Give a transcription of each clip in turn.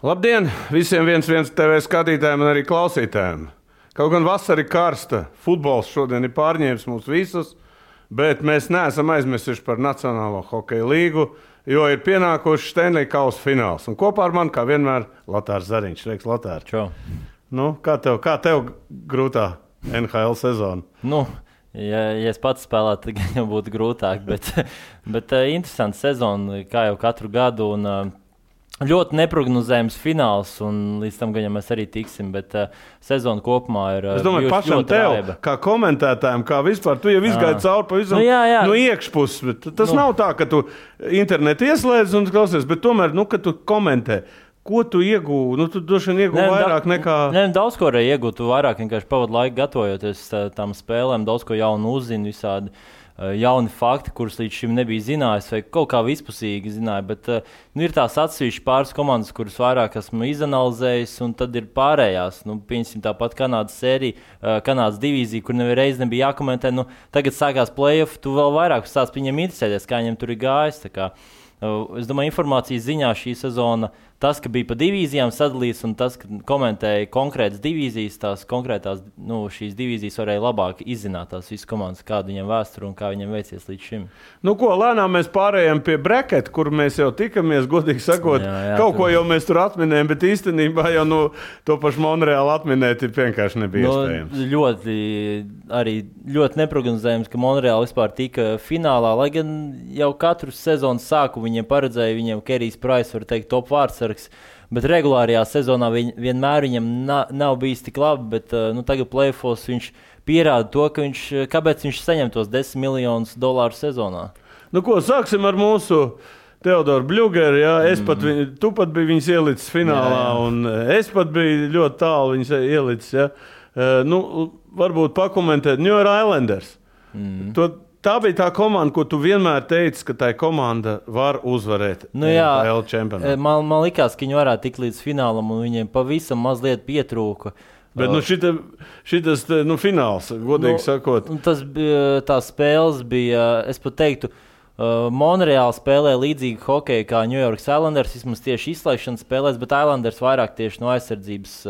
Labdien visiem 1-1 TV skatītājiem un arī klausītājiem. Kaut gan vasara ir karsta, futbols šodien ir pārņēmis mūs visus, bet mēs neesam aizmirsuši par Nacionālo hokeja līgu, jo ir pienākuši Stanley Kausa fināls. Un kopā ar mani, kā vienmēr, Latārs Zariņš. Reiks, Latār. Čau. Nu, kā tev grūtā NHL sezona? Ja es pats spēlētu, tad jau būtu grūtāk, bet interesanta sezona, kā jau katru gadu. Un, ļoti neprognozējams fināls, un līdz tam gan mēs arī tiksim, bet sezona kopumā ir es domāju, pašam tev, raiba. Kā komentētājiem, kā vispār, tu jau izgāji cauri pavisam no iekšpuses, bet tas nav tā, ka tu internetu ieslēdz un klausies, bet tomēr, kad tu komentē, ko tu iegūvi? Tu droši vien iegūvi vairāk nekā... Daudz ko arī iegūtu, tu vairāk vienkārši pavadu laiku gatavojoties tām spēlēm, daudz ko jaunu uzzini, visādi jauni fakti, kurus līdz šim nebija zinājis, vai kaut kā vispusīgi zināja, bet ir tās atsevišķi pāris komandas, kuras vairāk esmu izanalizējis, un tad ir pārējās. Pieņemsim tāpat Kanādas sērija, Kanādas divīzija, kur nevienreiz nebija jākomentē. Tagad sākās play-off, tu vēl vairāk sāc viņiem interesēties, kā viņiem tur ir gājis. Es domāju, informācijas ziņā šī sezona, tas, ka bija pa divīzijām sadalīts un tas, ka komentēja konkrētas divīzijas, tās konkrētās, šīs divīzijas varēja labāk izzināt tās visas komandas, kāda viņiem vēsture un kā viņiem veicies līdz šim. Lēnām mēs pārējām pie bracket, kur mēs jau tikamies, godīgi sakot, kaut ko jau mēs tur atminējam, bet īstenībā jau to pašu Monreālu atminēt ir vienkārši nebija iespējams. Ļoti neprognozējams, ka Monreāla vispār tika finālā, lai gan jau katru sezonas sāku viņiem paredzēja, viņiem Kerijs Price, var teikt, top vārdsargs, bet regulārajā sezonā vienmēr viņam nav bijis tik labi, bet tagad play-offs viņš pierāda to, kāpēc viņš saņem tos $10 miljonus sezonā. Sāksim ar mūsu Teodoru Bļugeru, tu pat biji viņas ielicis finālā, un es pat biju ļoti tālu viņas ielicis, varbūt pakomentēt New York Islanders. Tā bija tā komanda, ko tu vienmēr teici, ka tā komanda var uzvarēt NHL čempionātā. Man likās, ka viņi varētu tikt līdz finālam, un viņiem pavisam mazliet pietrūka. Bet šitas fināls, godīgi sakot. Tās spēles bija, es pat teiktu, Monreāla spēlē līdzīgi hokeju kā New York Islanders, vismaz tieši izslēgšanas spēlēs, bet Islanders vairāk tieši no aizsardzības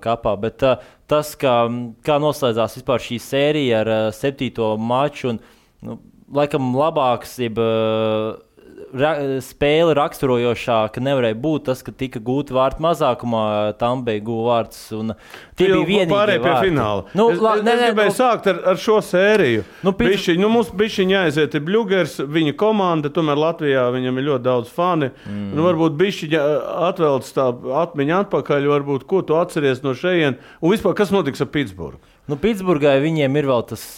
kapā, bet tas, kā noslēdzās vispār šī sērija ar 7. maču, un laikam labāks, spēle raksturojošāka nevarēja būt tas, ka tika gūti vārti mazākumā, Tampei guva vārtus, un tie bija vienīgie pārēj pie fināla. Es gribēju sākt ar šo sēriju. Mums bišķiņ jāaiziet ir Bļugers, viņa komanda, tomēr Latvijā viņam ir ļoti daudz fani. Varbūt bišķiņ atvelc tā atmiņa atpakaļ, varbūt, ko tu atceries no šejien, un vispār, kas notiks ar Pitsburgu? Pitsburgai viņiem ir vēl tas...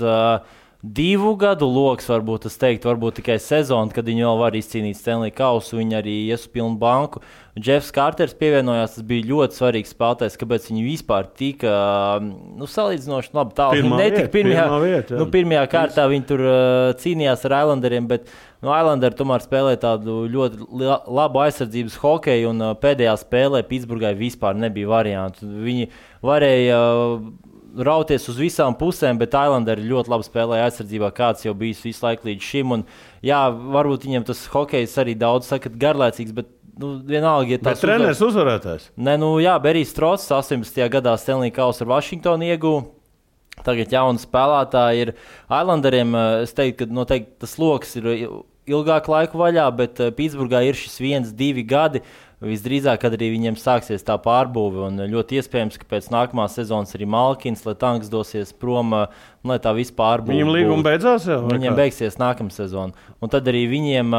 2 gadu loks, varbūt es teiktu, varbūt tikai sezona, kad viņi vēl var izcīnīt Stanley Kausu, viņi arī ies uz pilnu banku. Jeffs Carters pievienojās, tas bija ļoti svarīgs spēlētājs, kāpēc viņi vispār tika, salīdzinoši labi tālu. Pirmajā kārtā viņi tur cīnījās ar Islanderiem, bet Islanderi tomēr spēlē tādu ļoti labu aizsardzības hokeju, un pēdējā spēlē Pitsburgai vispār nebija variantu. Viņi varēja rauties uz visām pusēm, bet Islanderi ļoti labi spēlēja aizsardzībā, kāds jau bijis visu laiku līdz šim. Un, varbūt viņiem tas hokejs arī daudz sakat garlaicīgs, bet vienalga, bet treneris uzvarētājs. Berijs Trots 18. gadā Stanley Kausu ar Washingtonu ieguva. Tagad jauni spēlētāji ir Islanderiem. Es teiktu, ka noteikti tas loks ir ilgāk laiku vaļā, bet Pitsburgā ir šis 1-2 gadi. Visdrīzāk, kad arī viņiem sāksies tā pārbūve, un ļoti iespējams, ka pēc nākamās sezonas arī Malkins, Letanks dosies prom, lai tā viss pārbūve. Viņam līguma beidzās jau? Viņiem beigsies nākamā sezona. Un tad arī viņiem,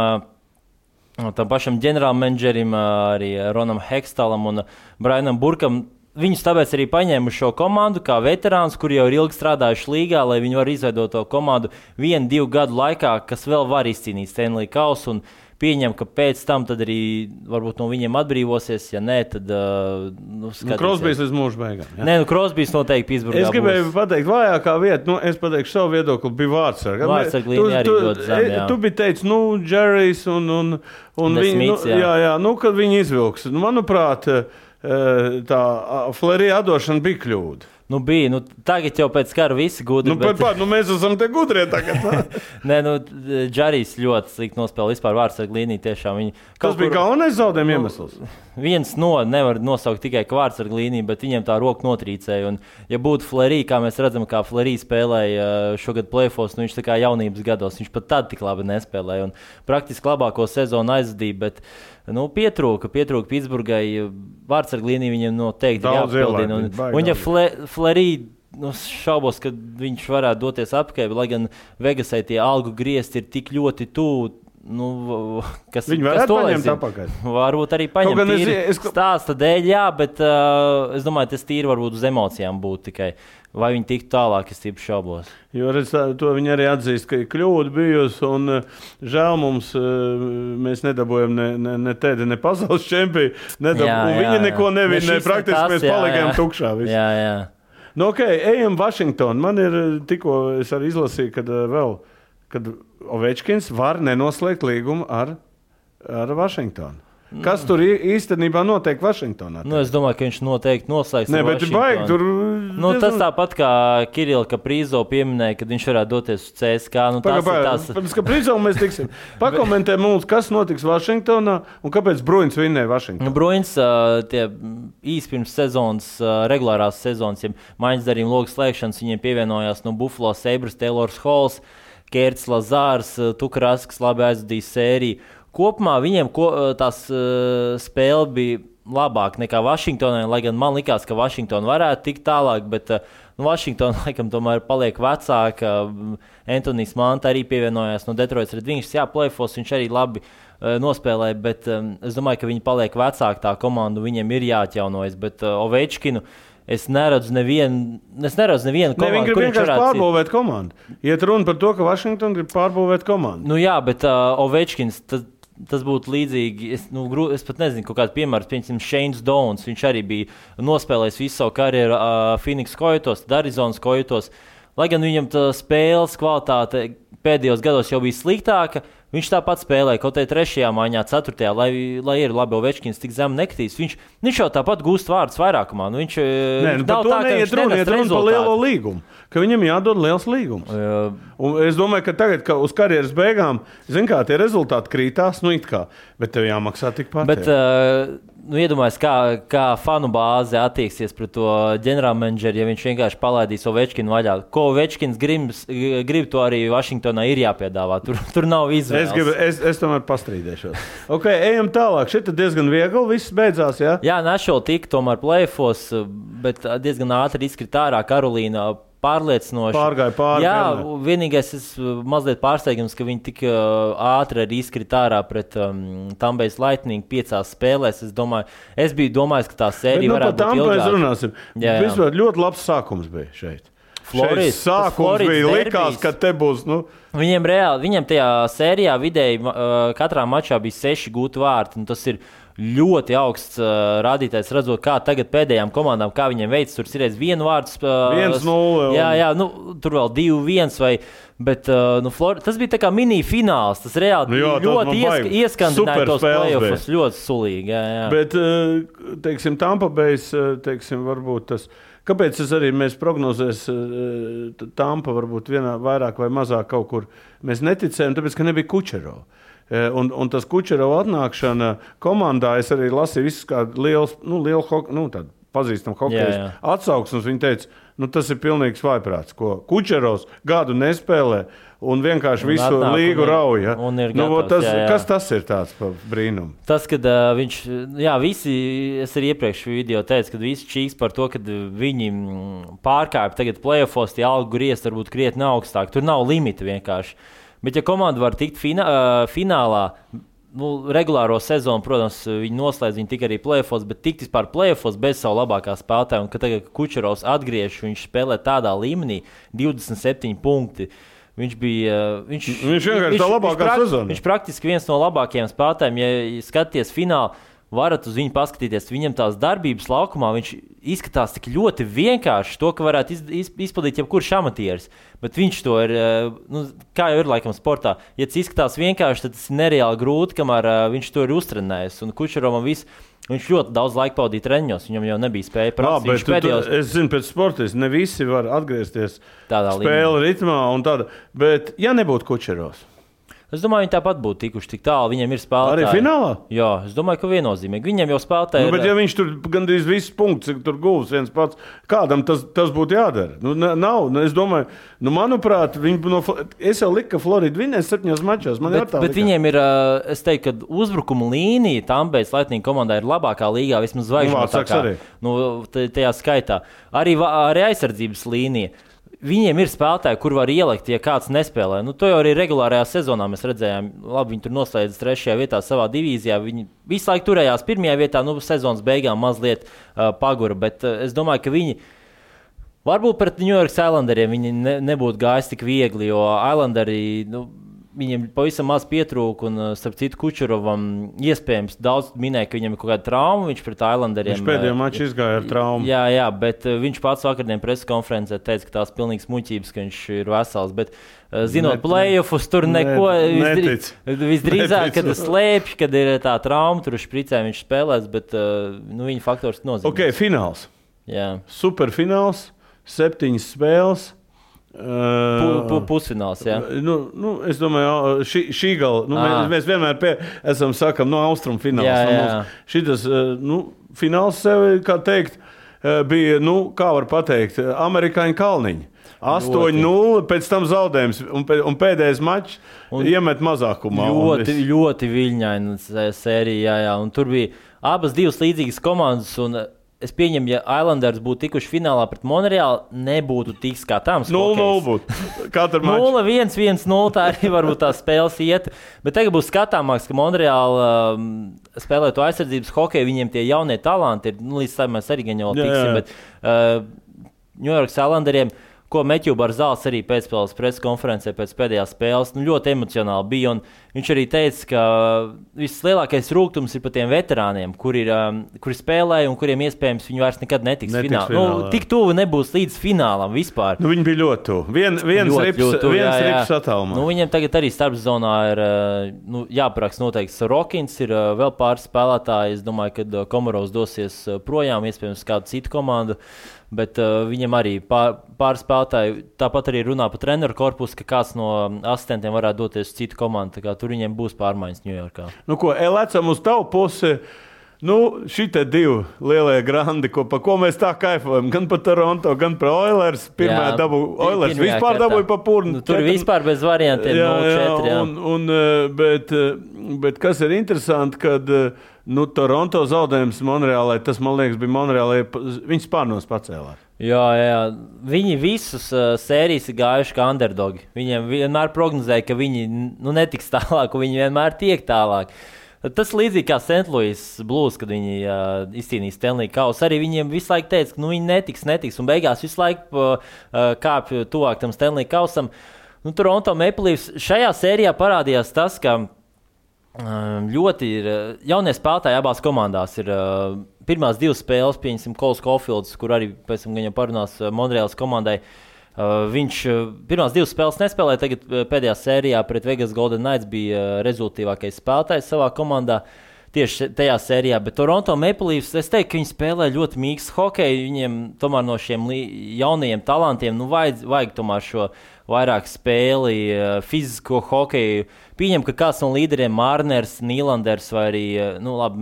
tam pašam ģenerālmenedžerim, arī Ronam Hextalam un Brianam Burkam, viņus tāpēc arī paņēma šo komandu kā veterāns, kuri jau ir ilgi strādājuši līgā, lai viņi var izveidot to komandu 1-2 gadu laikā, kas vēl var izcīnīt Stanley Kausu, un pieņem, ka pēc tam tad arī varbūt no viņiem atbrīvosies, ja nē, tad Crosbys līdz mūža beigām. Crosbys noteikti Pitsburgā būs. Es gribēju pateikt, vājākā vieta, es pateikšu savu viedokli, bija vārdsarga. Vārdsarga līnija arī ļoti zem, jā. Tu biji teicis, Džerijs un viņi, kad viņi izvilks. Manuprāt, tā Fleury atdošana bija kļūda. Bija. Tagad jau pēc kara visi gudri. Mēs esam te gudrie tagad. Nē, Džarijs ļoti slikti nospēlē vispār vārdsargu līniju. Tiešām tas bija galvenais zaudējuma iemesls. Viens nevar nosaukt tikai vārdsargu līniju, bet viņam tā roka notrīcēja. Un, ja būtu Fleury, kā mēs redzam, kā Fleury spēlēja šogad playoffs, viņš tā kā jaunības gados, viņš pat tad tik labi nespēlēja. Un praktiski labāko sezonu aizvadīja, bet pietrūka Pitsburgai. Vārdsargu līniju viņam noteikti jāapbildina. Un ja Fleury šaubos, ka viņš varētu doties apkārt, lai gan Vegasai tie algu griezti ir tik ļoti tuvu. Viņi varētu paņemt apakaļ. Varbūt arī paņemt stāsta dēļ, jā, bet es domāju, tas tīri varbūt uz emocijām būtu tikai. Vai viņi tiktu tālāk, es tīpaši šaubos. Jo to viņi arī atzīst, ka ir kļūda bijusi, un žēl mums, mēs nedabūjam ne tēdi, ne pasaules čempionu, un viņi neko nevina, praktiski mēs palikām tukšā. Jā. Ejam Vašingtonu. Man ir tikko, es arī izlasīju, kad Ovečkins var nenoslēgt līgumu ar Vašingtonu. Kas tur īstenībā notiek Vašingtonā? Es domāju, ka viņš noteikti noslēgs. Nē, bet baigi tur. Tas tāpat kā Kirila Kaprizov pieminēja, kad viņš varētu doties uz CSK. Pēc Kaprizov mēs tiksim. Pakomentē mums, kas notiks Vašingtonā un kāpēc Bruins vinnēja Vašingtonā. Bruins tie īsi pirms sezonas, regulārās sezonas, ja maiņas darījuma logas slēgšanas, viņiem pievienojās Buffalo Sabres, Taylors Halls, Kērts Lazārs, Tukrasks, labi aizvadīja sēriju. Kopumā viņiem tās spēle bija labāka nekā Vašingtonai, lai gan man likās, ka Vašingtona varētu tikt tālāk, bet Vašingtona laikam tomēr paliek vecāka. Antonijs Manta arī pievienojās no Detroitas Red Wings. Jā, playoffs viņš arī labi nospēlēja, bet es domāju, ka viņi paliek vecāka tā komanda, viņiem ir jāatjaunojas, bet Ovečkinu es neredzu nevienu komandu. Viņi grib vienkārši pārbūvēt komandu. Iet runa par to, ka Vašingtona grib pārbūvēt komandu. Jā, bet Ovečkins, tas būtu līdzīgi. Es pat nezinu, kaut kāds piemērs, piemēram, Shanes Downs. Viņš arī bija nospēlējis visu savu karjeru Phoenix Coyotes, Arizonas Coyotes. Lai gan viņam tā spēles kvalitāte pēdējos gados jau bija sliktāka, viņš tāpat spēlēja kaut kādā 3. maiņā, 4. lai ir labi, Ovečkins tik zem nekritīs. Viņš jau tāpat gūst vārdus vairākumā. Viņš nav tā, ka viņš nenes rezultātu. Par lielo līgumu, ka viņam jādod liels līgums. Un es domāju, ka tagad, ka uz karjeras beigām, tie rezultāti krītās, bet tev jāmaksā tikpat. Bet, iedomājies, kā fanu bāze attieksies pret to ģenerālmenedžeri, ja viņš vienkārši palaidīs Ovečkinu vaļā. Ko Ovečkins grib, to arī Vašingtonā ir jāpiedāvā. Tur nav izvēles. Es tomēr pastrīdēšos. Ejam tālāk. Šeit diezgan viegli viss beidzās, jā? Jā, Nashville tika tomēr playoffs, bet diezgan ātri izkrita ārā. Karolīna pārliecinoši. Pārgāja pāri. Jā, vienīgais mazliet pārsteigums, ka viņi tik ātri arī izkrita ārā pret Tampa Lightning 5 spēlēs. Es biju domājis, ka tā sērija varētu būt ilgāka. Mēs runāsim. Vispār ļoti labs sākums bija šeit. Floridas sākums bija likās, ka te būs. Viņiem tajā sērijā vidēji katrā mačā bija 6 gūti vārti. Tas ir ļoti augsts rādītājs, redzot, kā tagad pēdējām komandām, kā viņiem veicas. Tur ir 1 vārds. 1-0. Jā, tur vēl 2-1. Bet tas bija tā kā mini-fināls. Tas reāli ļoti ieskandināja tos playoffs. Ļoti sulīgi. Jā. Bet, teiksim, Tampa Bay's, varbūt tas. Kāpēc mēs prognozēs Tampa varbūt vairāk vai mazāk kaut kur mēs neticējām, tāpēc, ka nebija Kučerova. Un tas Kučerova atnākšana komandā, es arī lasīju visus kā lielu tādu pazīstamu hokeju atsauksmes. Viņi teica, tas ir pilnīgs vājprāts, ko Kučerovs gadu nespēlē un vienkārši visu līgu rauja. Kas tas ir tāds brīnums? Tas, kad viņš, es arī iepriekš video teicu, kad visi čīks par to, kad viņi pārkāpja tagad playoffos, tie algu griezt varbūt krietni augstāk. Tur nav limita vienkārši. Bet ja komanda var tikt finālā, regulāro sezonu, protams, viņi noslēdz, viņi tika arī playoffs, bet tikt vispār playoffs bez savu labākā spēlētāja. Un kad tagad Kučerovs atgriež, viņš spēlē tādā līmenī, 27 punkti. Viņš vienkārši tā labākā sezona. Viņš praktiski viens no labākajiem spēlētājiem, ja skaties finālu. varat uz viņu paskatīties. Viņam tās darbības laukumā viņš izskatās tik ļoti vienkārši, to, ka varētu izpildīt jebkurš amatieris. Bet viņš to ir, kā jau ir laikam sportā, ja tas izskatās vienkārši, tad tas ir nereāli grūti, kamēr viņš to ir uztrenējis. Un Kučerovam viņš ļoti daudz laika pavadīja treniņos, viņam jau nebija spēja prasīt. Es zinu, pēc sportista ne visi var atgriezties spēle ritmā un tāda, bet ja nebūtu Kučerovs? Es domāju, viņi tāpat būtu tikuši tik tālu. Viņiem ir spēlētāji. Arī finālā? Jā, es domāju, ka viennozīmīgi. Viņiem jau spēlētāji bet ja viņš tur gandrīz visus punktus tur gūs viens pats, kādam tas būtu jādara? Nav. Es domāju, manuprāt, es jau liku, ka Florida vinnēs 7 mačos. Bet viņiem ir, es teiktu, ka uzbrukuma līnija Tampejas Lightning komandā ir labākā līgā, vismaz zvaigžņu tajā skaitā. Arī aizsardzības līnija. Viņiem ir spēlētāji, kur var ielikt, ja kāds nespēlē. To jau arī regulārajā sezonā mēs redzējām. Labi, viņi tur noslēdz 3. vietā savā divīzijā. Viņi visu laiku turējās 1. vietā, sezonas beigām mazliet pagura. Bet es domāju, ka viņi varbūt pret New York Islanderiem viņi nebūtu gājis tik viegli, jo Islanderi viņiem pavisam maz pietrūka, un starp citu Kučerovam iespējams daudz minēja, ka viņam ir kaut kāda trauma, viņš pret Islanderiem. Viņš pēdējā mačā izgāja ar traumu. Jā, bet viņš pats vakardien preses konferencē teica, ka tās pilnīgas muļķības, ka viņš ir vesels, bet zinot play-offus, tur neko visdrīzāk, kad slēpj, kad ir tā trauma, tur špricē viņš spēlēs, bet viņa faktors nozīmē. Ok, fināls. Jā. Superfināls, 7 spēles. Pusfināls, jā. Es domāju, šī gala, mēs vienmēr sakam, austrumfināls. Jā. Šitas, fināls sevi, kā teikt, bija, kā var pateikt, amerikāņu kalniņi. 8-0, pēc tam zaudējums, un pēdējais mačs iemet mazākumā. Ļoti viļņaina sērija, jā. Un tur bija abas divas līdzīgas komandas, un es pieņemu, ja Islanders būtu tikuši finālā pret Monreālu, nebūtu tik skatāms. 0-0 būtu. Katru maču. 0-1, 1-0, tā arī varbūt tās spēles iet. Bet tagad būs skatāmāks, ka Monreāla spēlē to aizsardzības hokeju, viņiem tie jaunie talanti ir, līdz tam mēs arī gan jau tiksim, bet New York Islanderiem, ko Meķu Barzāls arī pēcspēles preses konferencē pēc pēdējās spēles, ļoti emocionāli bija, un viņš arī teica, ka vislielākais rūgtums ir par tiem veterāniem, kuri spēlēja un kuriem iespējams viņi vairs nekad netiks finālā. Tik tuvu nebūs līdz finālam vispār. Viņi bija ļoti tuvu. Viens rips attālumā. Viņiem tagad arī starpzonā ir jāparaksta noteikti Sorokins, ir vēl pāris spēlētāji. Es domāju, ka Komarovs dosies projām, iespējams kādu citu komandu. Bet viņam arī pāris spēlētāji tāpat arī runā par treneru korpusu, ka kāds no asistentiem varētu doties uz citu komandu. Tur viņiem būs pārmaiņas Ņujorkā. Lecam uz tavu pusi. Šitie divi lielie grandi, pa ko mēs tā kaifojam, gan par Toronto, gan par Oilers. Pirmā dabūja Oilers, vispār dabūja pa purnu. Tur vispār bez variantiem 0-4. Bet kas ir interesanti, kad Toronto zaudējums Monreālai, tas, man liekas, bija Monreālai, viņas pārnos pacēlās. Jā. Viņi visus sērijas ir gājuši kā underdogi. Viņiem vienmēr prognozēja, ka viņi netiks tālāk, un viņi vienmēr tiek tālāk. Tas līdzīgi kā St. Louis Blues, kad viņi izcīnīja Stanley kausu. Arī viņiem visu laiku teica, ka viņi netiks, un beigās visu laiku kāpj tuvāk tam Stanley kausam. Toronto Maple Leafs šajā sērijā parādījās tas, ka ļoti ir jaunie spēlētāji abās komandās. Ir pirmās 2 spēles, pieņemsim, Coles Caulfields, kur arī pēc tam gan parunās Monreālas komandai. Viņš pirmās 2 spēles nespēlēja, tagad pēdējā sērijā pret Vegas Golden Knights bija rezultīvākais spēlētājs savā komandā tieši tajā sērijā. Bet Toronto Maple Leafs, es teiktu, ka viņi spēlē ļoti mīkstu hokeju. Viņiem tomēr no šiem jaunajiem talantiem vajag tomēr šo vairāk spēli, fizisko hokeju. Pieņem, ka kāds no līderiem Marners, Nīlanders vai arī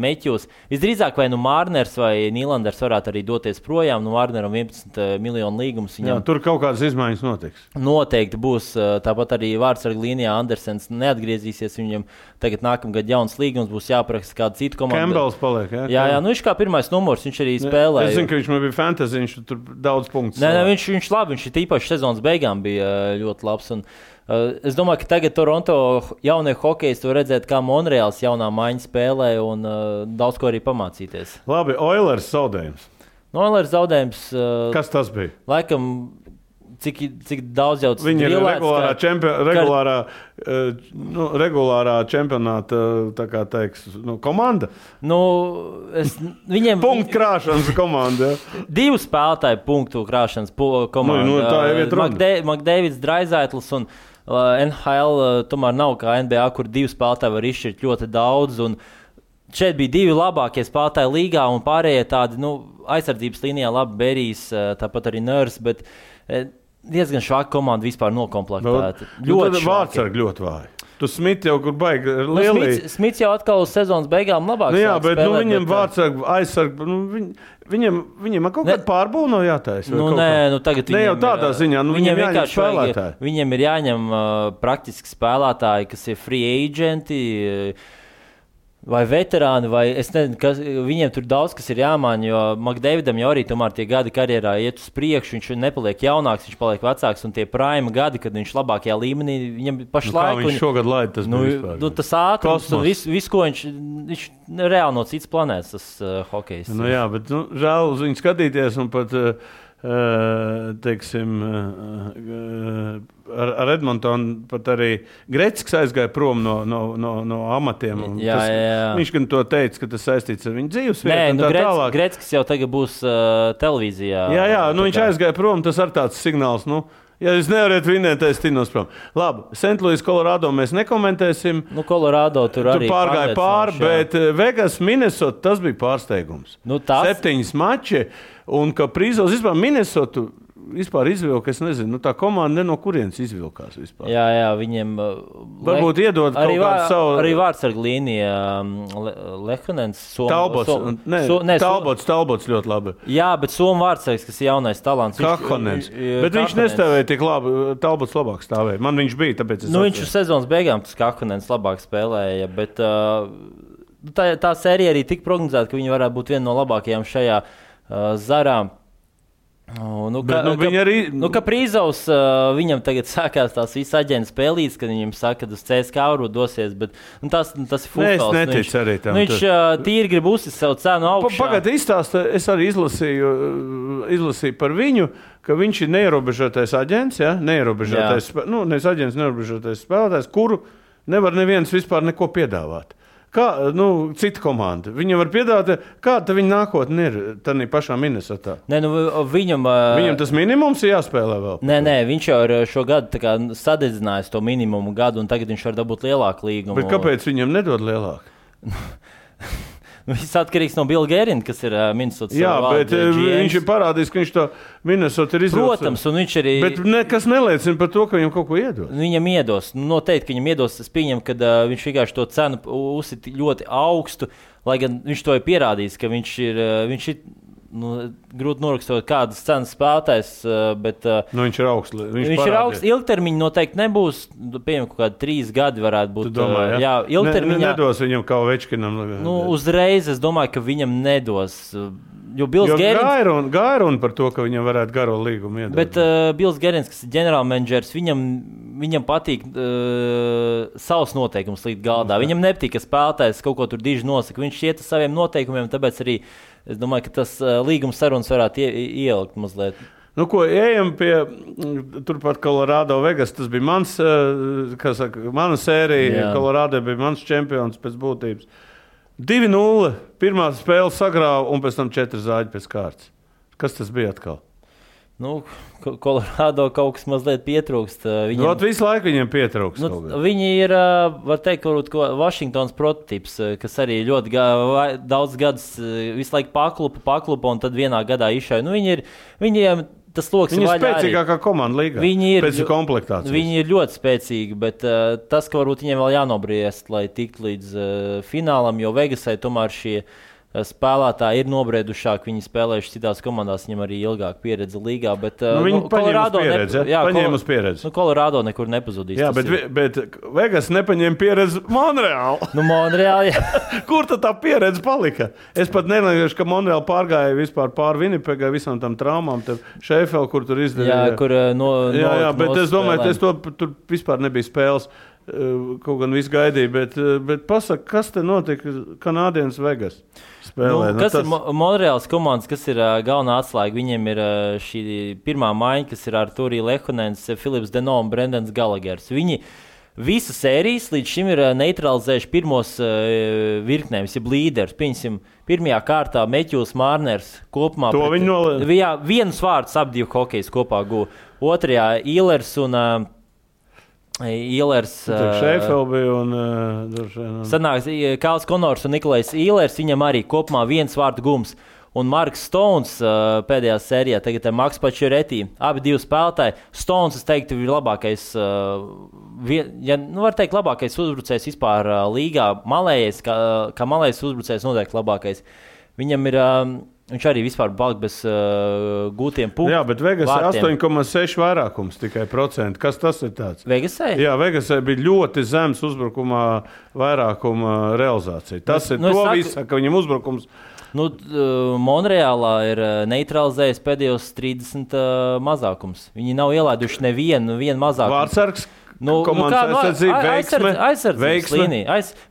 Meķus. Visdrīzāk vai Marners vai Nīlanders varētu arī doties projām. Marneram 11 miljonu līgums. Viņam... Tur kaut kādas izmaiņas notiks. Noteikti būs. Tāpat arī vārdsarga līnijā Andersens neatgriezīsies. Viņam tagad nākamgad jauns līgums būs jāparaksta kāda cita komanda. Campbells paliek, jā? Jā, viņš kā pirmais numurs, viņš arī spēlēja. Es zinu, ka viņš man bija fantasy, viņš tur daudz punktus. Nē, viņš labi, viņš īpaši sezonas beigām bija ļoti labs. Un, es domāju, ka tagad Toronto jaunie hokejisti var redzēt, kā Monreāls jaunā maiņa spēlē un daudz ko arī pamācīties. Labi, Oilers zaudējums. Oilers zaudējums. Kas tas bija? Laikam cik daudz jau tas viņi ir regulārā čempionāta, tā kā teiks, komanda. Viņiem punktu krāšanas komanda. Ja. 2 spēlētāji punktu krāšanas komanda. Tā jau ir runa. McDavids, Draisaitls un NHL tomēr nav kā NBA, kur 2 spēlētāji var izšķirt ļoti daudz. Un šeit bija 2 labākie spēlētāji līgā un pārējie tādi, aizsardzības līnijā labi Berijs, tāpat arī Nurs, bet diezgan švaka komanda vispār nokomplektēta. Ļoti vārdsargi ļoti vāji. Tu Smits jau kur baigi lielī. Smits jau atkal uz sezonas beigām labāk jā, bet spēlēt, viņiem vārdsargi aizsargi, viņiem kaut kāda pārbūve nav jātaisa. Tagad ne jau tādā ziņā, viņiem jāņem spēlētāji. Viņiem ir jāņem praktiski spēlētāji, kas ir free agenti, vai veterāni, vai es nezinu, viņiem tur daudz kas ir jāmaina, jo McDavidam jau arī tomēr tie gadi karjerā iet uz priekšu, viņš nepaliek jaunāks, viņš paliek vecāks, un tie prime gadi, kad viņš labākajā līmenī, viņam pašlaik... Kā viņš šogad laid, tas bija vispār? Tas ātrums un viss, ko viņš reāli no cits planētas, tas hokejs. Jā, bet žēl uz viņu skatīties un pat... teiksim, ar Edmontonu pat arī Gretzkis aizgāja prom no amatiem. Viņš gan to teica, ka tas saistīts ar viņu dzīvesvietu. Gretzkis jau tagad būs televīzijā. Jā, viņš aizgāja prom, tas ar tāds signāls, ja jūs nevarat vinēt, es tinos prom. Labi, St. Louis, Colorado mēs nekomentēsim. Colorado tur arī pārgāja pāri, bet Vegas, Minnesota, tas bija pārsteigums. 7 mači. Un ka Prīzos vispār Minnesotu izvilka, es nezinu, tā komanda no kurienes izvilkās vispār. Jā, viņiem... Varbūt iedod kaut kādu savu... Arī vārdsarga līnija Lehanens. Talbots ļoti labi. Jā, bet Somu vārdsargs, kas ir jaunais talants. Kahanens. Bet viņš nestāvēja tik labi, Talbots labāk stāvēja. Man viņš bija, tāpēc es viņš uz sezonas beigām tas Kahanens labāk spēlēja, bet tā sērija arī tik prognozēta, ka viņi varētu būt viena no labākajām šajā zarām. Prīzovs, viņam tagad sākās tās visas aģentu spēlītes, kad viņam saka, ka uz CSKA varbūt dosies, bet tas ir futbols. Es neticu arī tam. Viņš tīri grib uzsist savu cenu augšā. Pagad izstāsta, es arī izlasīju par viņu, ka viņš ir neierobežotais aģents, nevis aģents, neierobežotais spēlētājs, kuru nevar neviens vispār neko piedāvāt. Kā, cita komanda. Viņam var piedāvāt, kāda viņa nākotne ir tādā pašā Minnesotā. Viņam tas minimums ir jāspēlē vēl. Nē, viņš jau ir šo gadu sadedzinājis to minimumu gadu, un tagad viņš var dabūt lielāku līgumu. Bet kāpēc viņam nedod lielāku? Viss atkarīgs no Billa Gerina, kas ir Minnesotas. Jā, bet viņš ir parādījis, ka viņš to Minnesota ir izvilcis. Protams, un viņš arī... Bet nekas neliecina par to, ka viņam kaut ko iedos. Viņam iedos. Noteikti, ka viņam iedos. Es pieņemu, ka viņš vienkārši to cenu uzsit ļoti augstu, lai gan viņš to ir pierādījis, ka viņš ir grūti norakstot kādas cenas spēlētājs, bet... viņš ir augsts. Viņš ir augsts. Ilgtermiņa noteikti nebūs. Pieņem, kaut kādi 3 gadi varētu būt. Tu domā, jā, ilgtermiņā... Nedos viņam kā Ovečkinam. Uzreiz es domāju, ka viņam nedos. Jo Gerins... Gairun par to, ka viņam varētu garo līgumu iedot. Bet Bills Gerins, kas ir ģenerālmenedžers, viņam patīk savus noteikumus likt galdā. Viņam nepatīk, ka spēlētājs kaut ko tur diži nosaka. Viņš iet ar saviem noteikumiem, tāpēc arī es domāju, ka tas līguma sarunas varētu ielikt mazliet. Ejam pie turpat Colorado Vegas. Tas bija mana sērija. Colorado bija mans čempions pēc būtības. 2-0. Pirmā spēle sagrāva un pēc tam 4 zāģi pēc kārtas. Kas tas bija atkal? Colorado kaut kas mazliet pietrūkst. Visu laiku viņiem pietrūkst. Viņi ir, var teikt, Washingtons prototyps, kas arī ļoti daudz gadus visu laiku paklupa un tad vienā gadā izšauja. Viņiem tas loks ir spēcīgākā komanda līgā. Pēc komplektācijas. Viņi ir ļoti spēcīgi, bet tas, ka varbūt viņiem vēl jānobriest, lai tiktu līdz finālam, jo Vegasai tomēr šie spēlētāji ir nobriedušāki, viņi spēlējuši citās komandās, viņam arī ilgāk pieredze līgā, bet viņi paņēma uz pieredzi. Colorado nekur nepazudīs. Jā, bet Vegas nepaņēma pieredzi Monreāli. Monreāli, jā. Kur tad tā pieredze palika? Es pat nelieku, ka Monreāli pārgāja vispār pār Winnipegai visām tam traumām, Sheffield, kur tur izdarīja. Jā, kur bet es domāju, ka tur vispār nebija spēles. kaut gan viss gaidīja, bet pasaka, kas te notika Kanādienas Vegas spēlē? Kas ir Monreāls komandas, kas ir galvenā atslēga? Viņiem ir šī pirmā maiņa, kas ir Artūrija Lehonens, Filips Deno un Brendans Galagers. Viņi visas sērijas līdz šim ir neutralizējuši pirmos virknējumus, jeb līderus. Pieņemsim, pirmajā kārtā Meķūs Mārners kopumā. To viņi nolēma. Jā, vienus vārdus ap divu hokejus kopā guva. Otrajā Īlers un Šeifelbi un sanāks Kāls Konors un Nikolais Īlers, viņam arī kopumā viens vārdu gums. Un Marks Stones pēdējā sērijā, tagad ir Maks Pačuretī, abi divi spēlētāji. Stones, es teiktu, ir labākais, var teikt, labākais uzbrucējs vispār līgā. Malējais, kā malējais uzbrucējs noteikti labākais. Viņam ir, viņš arī vispār palika bez gūtiem punktiem. Jā, bet Vegasai 8,6 vairākums tikai procenti. Kas tas ir tāds? Vegasai? Jā, Vegasai bija ļoti zems uzbrukumā vairākuma realizācija. Tas ir to visu, ka viņam uzbrukums... Monreālā ir neutralizējis pēdējos 30 mazākums. Viņi nav ielaiduši nevienu mazākumu. Vārtsargs, komandas aizsardzība, veiksme.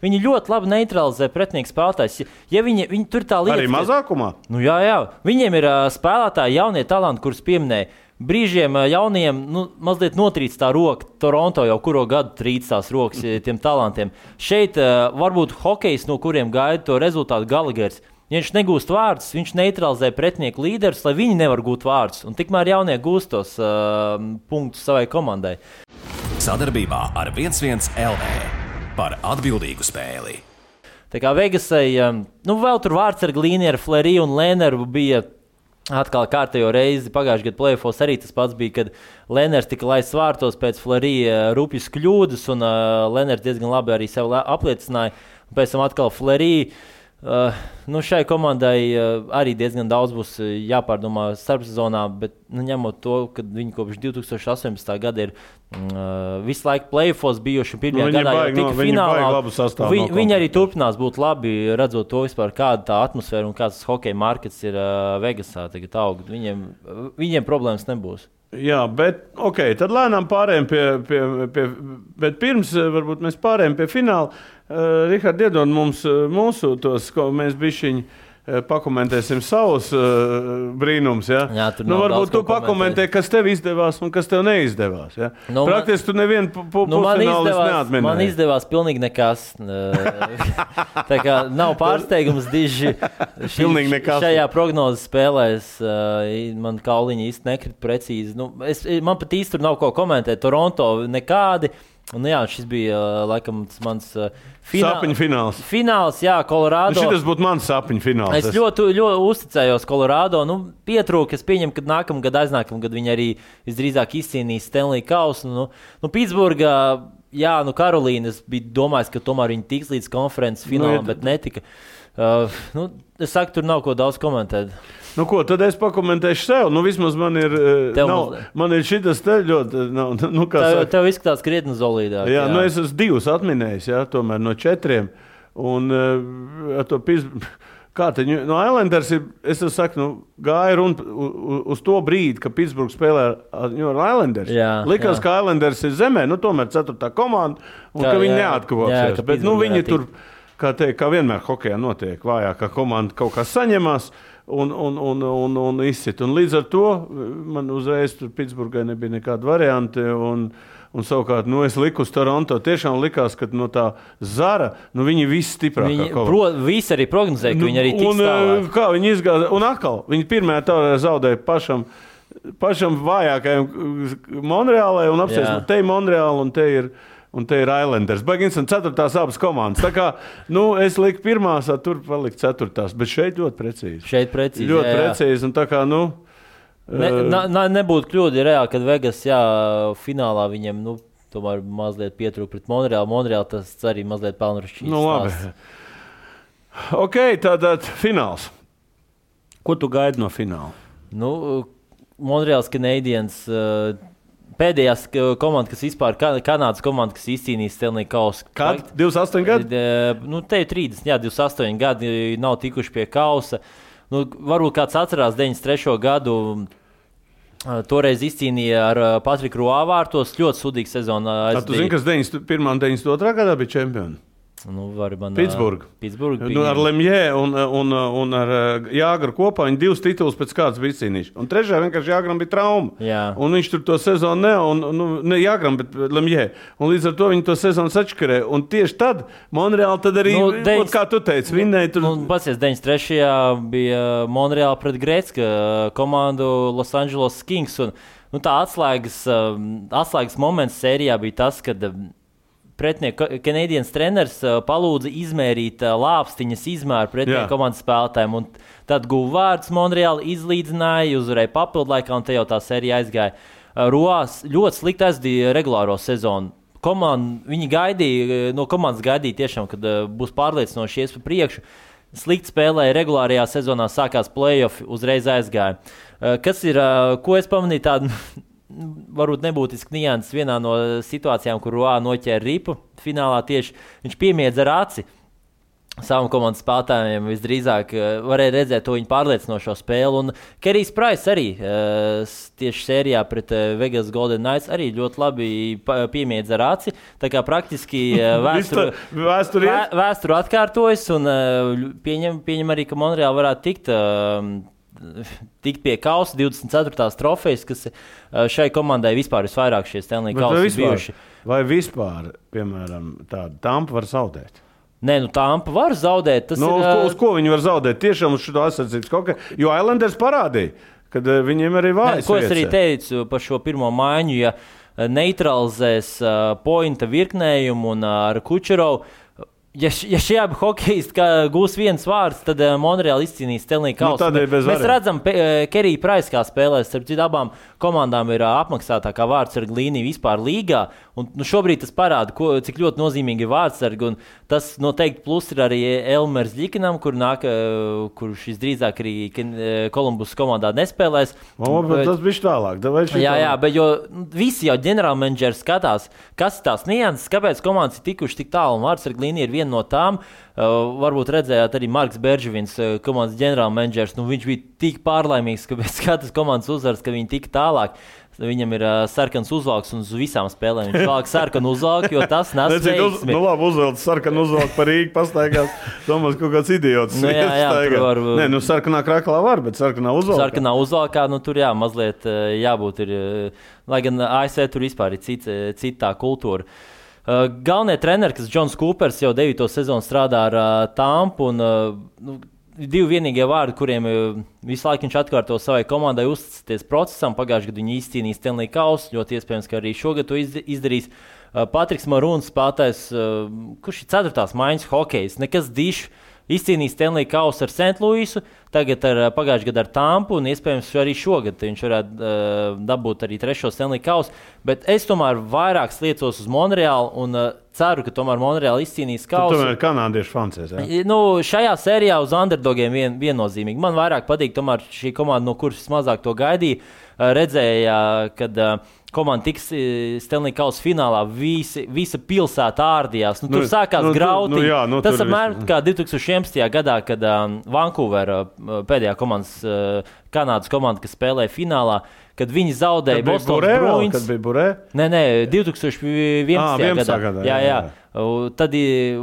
Viņi ļoti labi neutralizē pretinieku spēlētājs. Ja viņi tur tā lietas... Arī mazākumā? Jā. Viņiem ir spēlētāji, jaunie talanti, kurus pieminēja. Brīžiem jauniem mazliet notrīc tā roka. Toronto jau kuro gadu trīc tās rokas tiem talantiem. Šeit varbūt hokejs, no kuriem gaida to rezultātu Galagers. Ja viņš negūst vārdus, viņš neutralizē pretinieku līderus, lai viņi nevar gūt vārdus. Un tikmēr jaunie gūst tos punktus savai komandai. Sadarbībā ar 1-1 LV par atbildīgu spēli. Tā kā Vegasai, vēl tur vārdsarga līnija ar Fleury un Lehneru bija atkal kārtējo reizi. Pagājušajā gadu play-offos arī tas pats bija, kad Lehners tika laists vārtos pēc Fleury rupjas kļūdas, un Lehners diezgan labi arī sev apliecināja. Pēc tam atkal Fleury. Šai komandai arī diezgan daudz būs jāpārdomā starpsezonā, bet ņemot to, ka viņi kopš 2018. gada ir visu laiku play-offos bijuši pirmajā gadā jau tika finālā. Viņi arī turpinās būt labi, redzot to vispār, kāda tā atmosfēra un kāds hokeja markets ir Vegasā tagad aug. Viņiem problēmas nebūs. Jā, bet tad lēnām pārējām bet pirms varbūt mēs pārējām pie fināla. Rihard, iedod mums mūsu tos, ko mēs bišķiņi pakomentēsim savus brīnums. Ja? Jā, varbūt tu pakomentē, kas tev izdevās un kas tev neizdevās. Ja? Praktiski tu nevienu pusfinālis neatminēji. Man izdevās pilnīgi nekas. Tā kā nav pārsteigums diži šajā prognozes spēlēs. Man kauliņi īsti nekrit precīzi. Man pat īsti tur nav ko komentēt. Toronto nekādi. Šis bija laikam mans sapņu fināls. Fināls, jā, Kolorādo. Šis būtu mans sapņu fināls. Es ļoti uzticējos Kolorādo. Pietrūka, es pieņemu, ka aiznākamā gada viņi arī visdrīzāk izcīnīs Stanley Kausu. Pitsburgā, Karolīna, es biju domājis, ka tomēr viņi tiks līdz konferences finālam, bet netika. Es saku, tur nav ko daudz komentēt. Tad es pakomentēšu sev. Vismaz man ir, man ir šitas te ļoti... Tev izskatās krietni zolīdāk. Jā, es esmu 2 atminējis, tomēr no 4. Un kā te, Islanders ir, es saku, gāja runa uz to brīdi, ka Pittsburgh spēlē ar Islanders. Likās, ka Islanders ir zemē, tomēr 4. komanda, un ka viņi neatkavāsies. Bet viņi tur, kā vienmēr hokejā notiek, vājākā komanda kaut kā saņemās. Un izsit. Un līdz ar to man uzreiz tur Pitsburgai nebija nekāda varianti. Un savukārt, es liku uz Toronto. Tiešām likās, ka no tā Zara, viņi visi stiprākā. Visi arī prognozēja, ka viņi arī tiks tālāk. Kā viņi izgāja, un atkal, viņi pirmajā taurē zaudēja pašam vājākajam Monreālai un apsies, te ir Monreāla un te ir Islanders. Baigins un 4. abas komandas. Tā kā, es liku 1, tur paliku 4. Bet šeit ļoti precīzi. Ļoti precīzi. Un tā kā, nebūtu kļūdi reāli, kad Vegas, finālā viņiem, tomēr mazliet pietrūka pret Monreālu. Monreālu tas arī mazliet pelnušķīs. Labi. Tātad fināls. Ko tu gaidi no fināla? Monreāls Canadiens... Pēdējās komanda, kas vispār Kanādas komanda, kas izcīnījis Stanley Kausu. Kad? 28 gadi? Te ir 30, 28 gadi nav tikuši pie Kausa. Varbūt kāds atcerās 93. gadu. Toreiz izcīnīja ar Patriku Roā vārtos ļoti sudīgu sezonu. Tu zini, kas 91. un 92. gadā bija čempioni? Pitsburga. Ar Lemjē un ar Jāgru kopā viņi 2 titulus pēc kāds bija izcīnījuši. Un trešajā vienkārši Jāgram bija trauma. Jā. Un viņš tur to sezonu ne Jāgram, bet Lemjē. Un līdz ar to viņi to sezonu sačkarē. Un tieši tad Monreāli tad arī, kā tu teici, vinnēja tur. Pasies, 93. bija Monreāli pret Gretzka komandu Los Angeles Kings. Un tā atslēgas moments sērijā bija tas, kad pretinieku Canadiens treneris palūdza izmērīt lāpstiņas izmēru pretinieku komandas spēlētājiem. Un tad guva vārdus Monreāli, izlīdzināja, uzvarēja papildlaikā, un te jau tā sērija aizgāja. Roās ļoti slikti aizdīja regulāro sezonu. Viņi no komandas gaidīja tiešām, kad būs pārliecinoši ies pa priekšu. Slikti spēlēja regulārajā sezonā, sākās play-offi, uzreiz aizgāja. Kas ir, ko es pamanīju tādu... varbūt nebūtiski nianses vienā no situācijām, kur Roā noķēra ripu finālā tieši. Viņš piemiedza ar aci savam komandas spēlētājiem. Visdrīzāk varēja redzēt to viņa pārliecinošo spēli. Un Kerijs Prais arī tieši sērijā pret Vegas Golden Knights arī ļoti labi piemiedza ar aci. Tā kā praktiski vēsture atkārtojas un pieņem arī, ka Monreāli varētu tikt pie kausa 24. trofejas, kas šai komandai vispār visvairāk šie Stanley kausi bijuši. Vai vispār, piemēram, tāda Tampa var zaudēt? Nē, Tampa var zaudēt. Uz ko viņi var zaudēt? Tiešām uz šo aizsardzības kaut kā, jo Islanders parādīja, kad viņiem arī vājas. Ko es arī teicu par šo pirmo maiņu, ja neutralizēs pointa virknējumu un ar Kučerovu. Ja šie abi hokejisti gūs viens vārds, tad Monreāli izcīnīs Stanley kausu. Mēs redzam, Kerija Prais kā spēlēs, starp citu abām komandām ir apmaksātākā vārdsarga līnija vispār līgā. Un, šobrīd tas parāda, cik ļoti nozīmīgi ir vārdsargi. Un tas noteikti plus ir arī Elmers Ļikinam, kurš visdrīzāk arī Kolumbus komandā nespēlēs. Tas bija tālāk. Jā, bet jo visi jau ģenerālmenedžeri skatās, kas ir tās nianses, kāpēc komandas ir tikuši tik tālu. Un vārdsarga līnija ir viena no tām. Varbūt redzējāt arī Marks Berživins, komandas ģenerālmenedžers. Viņš bija tik pārlaimīgs, ka pēc katras komandas uzvaras, ka viņi tika tālāk. Viņam ir sarkans uzvalks un uz visām spēlēm viņš valk sarkanu uzvalku, jo tas nes veiksmi. Labi, uzvelc sarkanu uzvalku par Rīgu pastaigās. Domās, kaut kāds idiots. Sarkanā kraklā var, bet sarkanā uzvalkā. Sarkanā uzvalkā, tur mazliet jābūt ir, lai gan ASV tur vispār ir citā kultūra. Galvenie treneri, kas Džons Kūpers jau 9. sezonu strādā ar Tampu un divi vienīgie vārdi, kuriem visu laiku viņš atkārto savai komandai uzticēties procesam. Pagājušajā gadā viņi izcīnīja Stanley kausu, ļoti iespējams, ka arī šogad to izdarīs. Patriks Marūns spēlētājs, kurš ir 4. maiņas hokejs, nekas dišs, izcīnīja Stanley kausu ar St. Louisu, tagad pagājušajā gadā ar Tampu un iespējams arī šogad viņš varētu dabūt arī 3. Stanley kausu. Bet es tomēr vairāk sliecos uz Monreāli un ceru, ka tomēr Monreāli izcīnīs kausu. Tu tomēr kanādiešu fancies, jā? Šajā sērijā uz underdogiem viennozīmīgi. Man vairāk patīk tomēr šī komanda, no kuras mazāk to gaidīja. Redzēja, kad komanda tiks Stanley kausa finālā, visa pilsēta ārdījās. Tur sākās grauti. Tas apmēram kā 2011. gadā, kad Vancouver pēdējā Kanādas komanda, kas spēlēja finālā, kad viņi zaudēja Bostonas Bruins. Kad bija Burē? Nē, 2011. gadā. Jā. Tad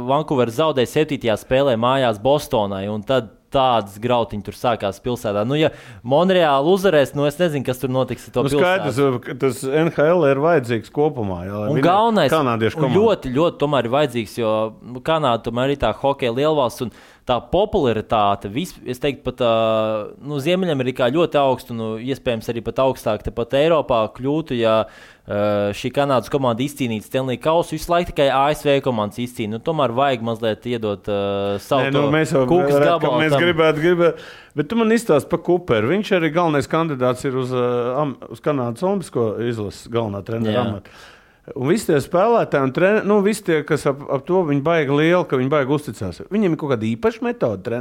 Vancouver zaudēja 7. spēlē mājās Bostonai, un tad tādas grautiņi tur sākās pilsētā. Ja Monreāli uzvarēs, es nezinu, kas tur notiks ar to pilsētu. Skaidrs, tas NHL ir vajadzīgs kopumā. Jā, un galvenais, ļoti, ļoti tomēr ir vajadzīgs, jo Kanāda tomēr ir tā hokeja lielvalsts, un tā popularitāte, es teiktu, pat Ziemeļamerikā ļoti augstu, un iespējams arī pat augstāk tepat Eiropā kļūtu, ja šī Kanādas komanda izcīnītu Stanley kausu, visu laiku tikai ASV komandas izcīna. Tomēr vajag mazliet iedot savu kūkas gabalu. Mēs gribētu, bet tu man izstāsti par Kuperu. Viņš arī galvenais kandidāts ir uz Kanādas olimpisko izlases galvenā trenera amata. Un visi tie spēlētāji un treneri, visi tie, kas ap to viņi baigi lieli, ka viņi baigi uzticās. Viņiem ir kaut kāda īpaša metode,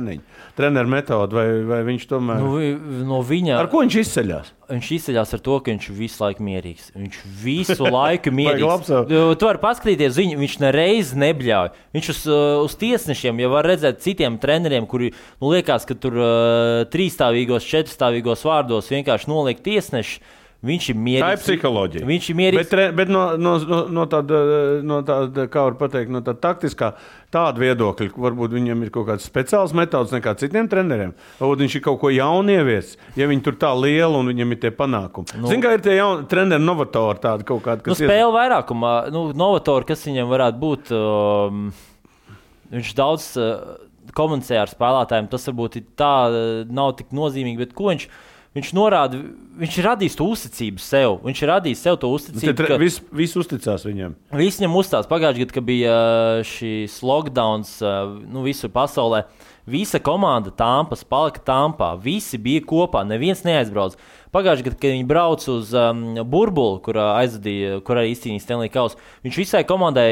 treneru metode, vai viņš tomēr... No viņa... Ar ko viņš izceļās? Viņš izceļās ar to, ka viņš visu laiku mierīgs. Viņš visu laiku mierīgs. Tu vari paskatīties, viņš nereiz nebļauj. Viņš uz tiesnešiem, ja var redzēt citiem treneriem, kuri liekas, ka tur 3-stāvīgos, 4-stāvīgos vārdos vienkārši noliek tiesneši. Viņš ir mierīgs. Tā ir psiholoģija. Viņš ir mierīgs. Bet no tāda, kā var pateikt, no tāda taktiskā tāda viedokļa, varbūt viņam ir kaut kāds speciāls metods nekā citiem treneriem. Varbūt viņš ir kaut ko jaunu ievies, ja viņi tur tā liela un viņam ir tie panākumi. Zin, kā ir tie jauni treneri novatori tādi kaut kādi, kas spēle vairākumā, novatori, kas viņam varētu būt, viņš daudz komunicē ar spēlētājiem, tas varbūt tā nav tik nozīmīgi, bet ko viņš norāda, viņš ir radījis to uzticību sev. Viņš ir radījis sev to uzticību. Visi uzticās viņam. Visi viņam uzticās. Pagājušajā gadā, kad bija šīs lockdowns visur pasaulē, visa komanda Tampas palika Tampā. Visi bija kopā, neviens neaizbrauc. Pagājušajā gadā, kad viņi brauc uz burbuli, kur arī izcīnīja Stanley Kausu, viņš visai komandai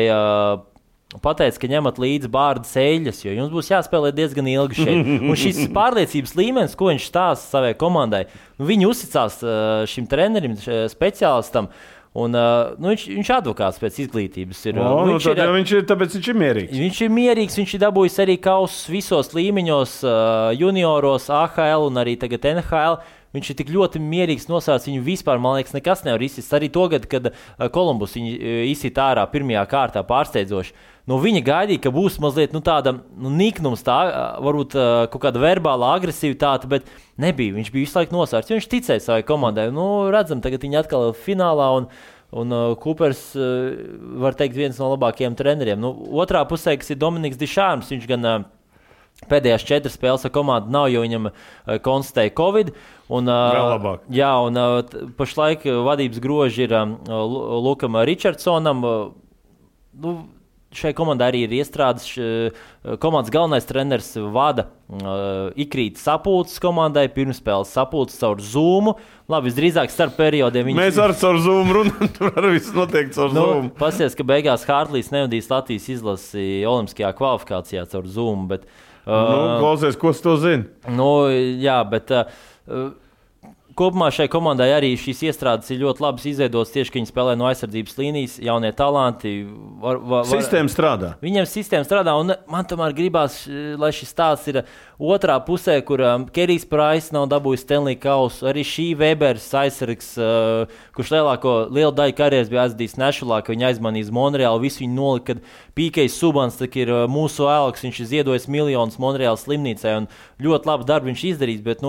pateica, ka ņemat līdzi bārdas eļļas, jo jums būs jāspēlē diezgan ilgi šeit. Un šis pārliecības līmenis, ko viņš stāsta savai komandai, viņi uzticās šim trenerim, speciālistam, un viņš advokāts pēc izglītības ir. Tāpēc viņš ir mierīgs. Viņš ir mierīgs, viņš ir dabūjis arī kausus visos līmeņos, junioros, AHL un arī tagad NHL. Viņš ir tik ļoti mierīgs, nosaucis viņu vispār, man liekas, nekas nevar izsist. Arī to gadu, kad Kolumbus viņu izsit ārā pirmajā kārtā pārsteidzoši. Viņa gaidīja, ka būs mazliet tāda niknums, varbūt kaut kāda verbāla agresivitāte, bet nebija. Viņš bija visu laiku nosaucis, jo viņš ticēja savai komandai. Redzam, tagad viņi atkal ir finālā un Coopers, var teikt, viens no labākajiem treneriem. Otrā pusē, kas ir Dominiks Dišārms, viņš gan pēdējās 4 spēles ar komandu nav, jo viņam konstatēja Covid. Pašlaik vadības groži ir Lukam Richardsonam. Šai komandai arī ir iestrādes. Komandas galvenais treneris vada ikrīt sapulces komandai, pirmspēles sapulces caur Zoom. Labi, visdrīzāk starp periodiem. Mēs ar caur Zoom runājam, tur arī viss notiek caur Zoom. Pasies, ka beigās Hārtlīs nevadīs Latvijas izlasi olimpiskajā kvalifikācijā caur Zoom, bet klausies, ko tu to zini? Jā, bet kopumā šai komandai arī šīs iestrādes ir ļoti labas izveidotas tieši, ka viņi spēlē no aizsardzības līnijas, jaunie talanti. Sistēma strādā. Viņiem sistēma strādā, un man tomēr gribās, lai šis stāsts ir otrā pusē, kur Kerijs Prais nav dabūjis Stanley Kausu, arī šī Webers aizsargs, kurš lielu daļu karjeras bija aizvadījis Nešulā, ka viņi aizmanīja Monreālu, visu viņi nolika, kad Pīkejs Subans ir mūsu ēlks, viņš ir ziedojis miljonus Monreālas slimnīcai, un ļoti labu darbu viņš izdarīs, bet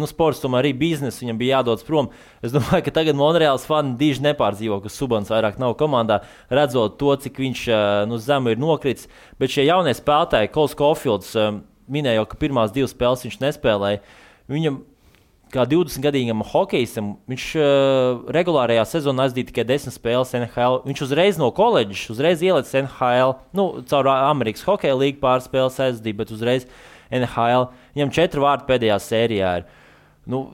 sports tomēr arī biznes, viņam bija jādodas prom. Es domāju, ka tagad Monreāls fani diži nepārdzīvo, ka Subans vairāk nav komandā, redzot to, cik viņš zemu ir nokritis, bet šie jaunie spēlētāji, Kols Caulfields, minēja jau, ka pirmās 2 spēles viņš nespēlēja. Viņam, kā 20-gadīgam hokejistam, viņš regulārajā sezonā aizdīja tikai 10 spēles NHL. Viņš uzreiz no koledžas, uzreiz ielicis NHL, caur Amerikas hokeja līgu pāris spēles aizdīja, bet uzreiz NHL. Viņam 4 vārdi pēdējā sērijā ir.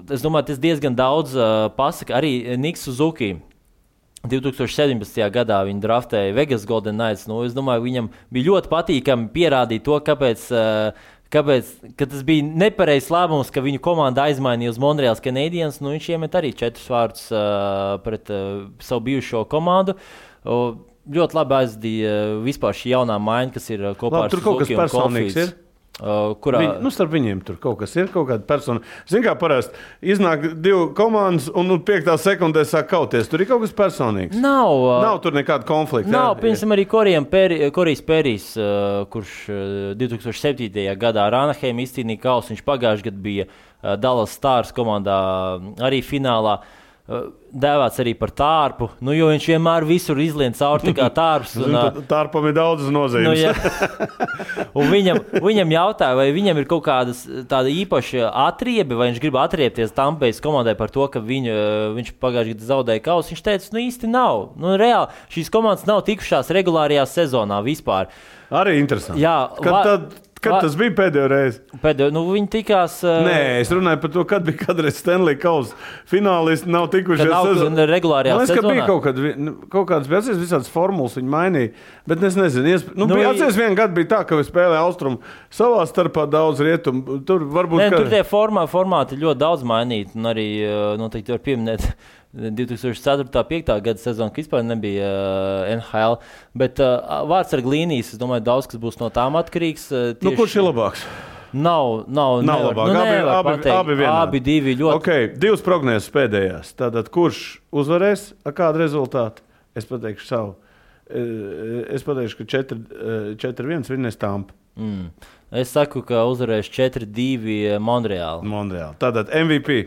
Es domāju, tas diezgan daudz pasaka. Arī Niks Suzuki 2017. gadā viņi draftēja Vegas Golden Knights. Es domāju, viņam bija ļoti patīkami pierādīt to, kāpēc tas bija nepareizs lēmums, ka viņu komanda aizmainīja uz Montreals Canadiens. Viņš iemet arī 4 vārdus pret savu bijušo komandu. Ļoti labi aizdīja vispār šī jaunā maiņa, kas ir kopā ar Suzuki un Caulfields. Starp viņiem tur kaut kas ir, kaut kāda persona. Zini, kā parasti iznāk 2 komandas un 5. sekundē sāk kauties. Tur ir kaut kas personīgs. Nav tur nekāda konflikta. Nav, piemēram, arī Korijs Perijs, kurš 2007. gadā ar Anaheim izcīnīja kausu. Viņš pagājušajā gadā bija Dallas Stars komandā arī finālā. Dēvēts arī par tārpu, jo viņš vienmēr visur izlien cauri kā tārps. Tārpam ir daudz nozīmes. Un viņam jautāja, vai viņam ir kaut kādas tāda īpaša atriebe, vai viņš grib atriepties Tampējas komandai par to, ka viņš pagājušajā gadā zaudēja kausu. Viņš teica, īsti nav. Reāli, šīs komandas nav tikušās regulārajā sezonā vispār. Arī interesanti. Jā, Kad tas bija pēdējo reizi? Viņi tikās... Nē, es runāju par to, kad bija kādreiz Stanley Kausa finālisti nav tikušies. Regulārajā sezonā. Ka bija kaut kādas bija visādas formulas viņi mainīja, bet es nezinu. Atceries vienu gadu bija tā, ka spēlēja Austrumu savā starpā daudz rietumu. Tur varbūt... Tur tie formāti ļoti daudz mainīti, un arī noteikti var pieminēt 2004.-2005. gada sezona, ka vispār nebija NHL, bet vārdsarga līnijas, es domāju, daudz kas būs no tām atkarīgs. Kurš ir labāks? Nav labāk. Abi vienādi. Abi divi ļoti. Okay, 2 prognozes pēdējās. Tātad, kurš uzvarēs ar kādu rezultātu? Es pateikšu savu. Es pateikšu, ka 4-1 vinnēs Tampa. Es saku, ka uzvarēs 4-2 Monreāli. Tātad MVP.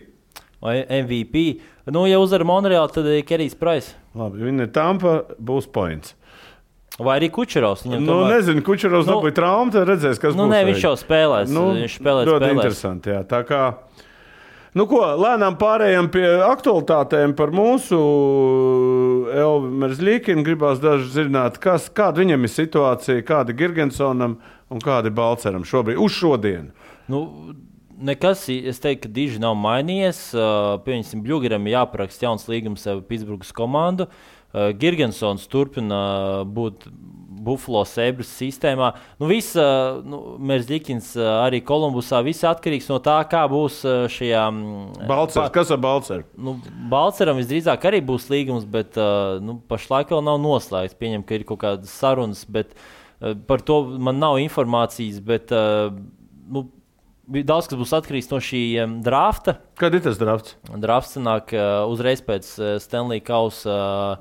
Vai MVP? Nu, ja uzvar Monreāli, tad ir Kerijs Price. Labi, vinnē Tampa, būs points. Vai arī Kučerovs. Nezinu, Kučerovs dabūja traumu, tad redzēs, kas būs. Viņš jau spēlēs. Viņš spēlēs. Ļoti interesanti, jā. Tā kā, lēnām pārējām pie aktualitātēm par mūsu Elvi Merzlikinu. Gribās daži zināt, kāda viņam ir situācija, kāda Girgensonam un kāda Balceram šobrīd, uz šodienu. Nekas, es teiktu, ka diži nav mainījies. Pieņemsim, Bļugeram jāparaksta jauns līgums ar Pitsburgas komandu. Girgensons turpina būt Buffalo Sabres sistēmā. Merzlikins arī Kolumbusā. Viss atkarīgs no tā, kā būs šajā. Balcers. Kas ar Balceru? Balceram visdrīzāk arī būs līgums, bet pašlaik vēl nav noslēgts. Pieņem, ka ir kaut kādas sarunas, bet par to man nav informācijas. Bet, daudz kas būs atkarīgs no šī drafta. Kad ir tas drafts? Drafts sanāk uzreiz pēc Stanley Kausa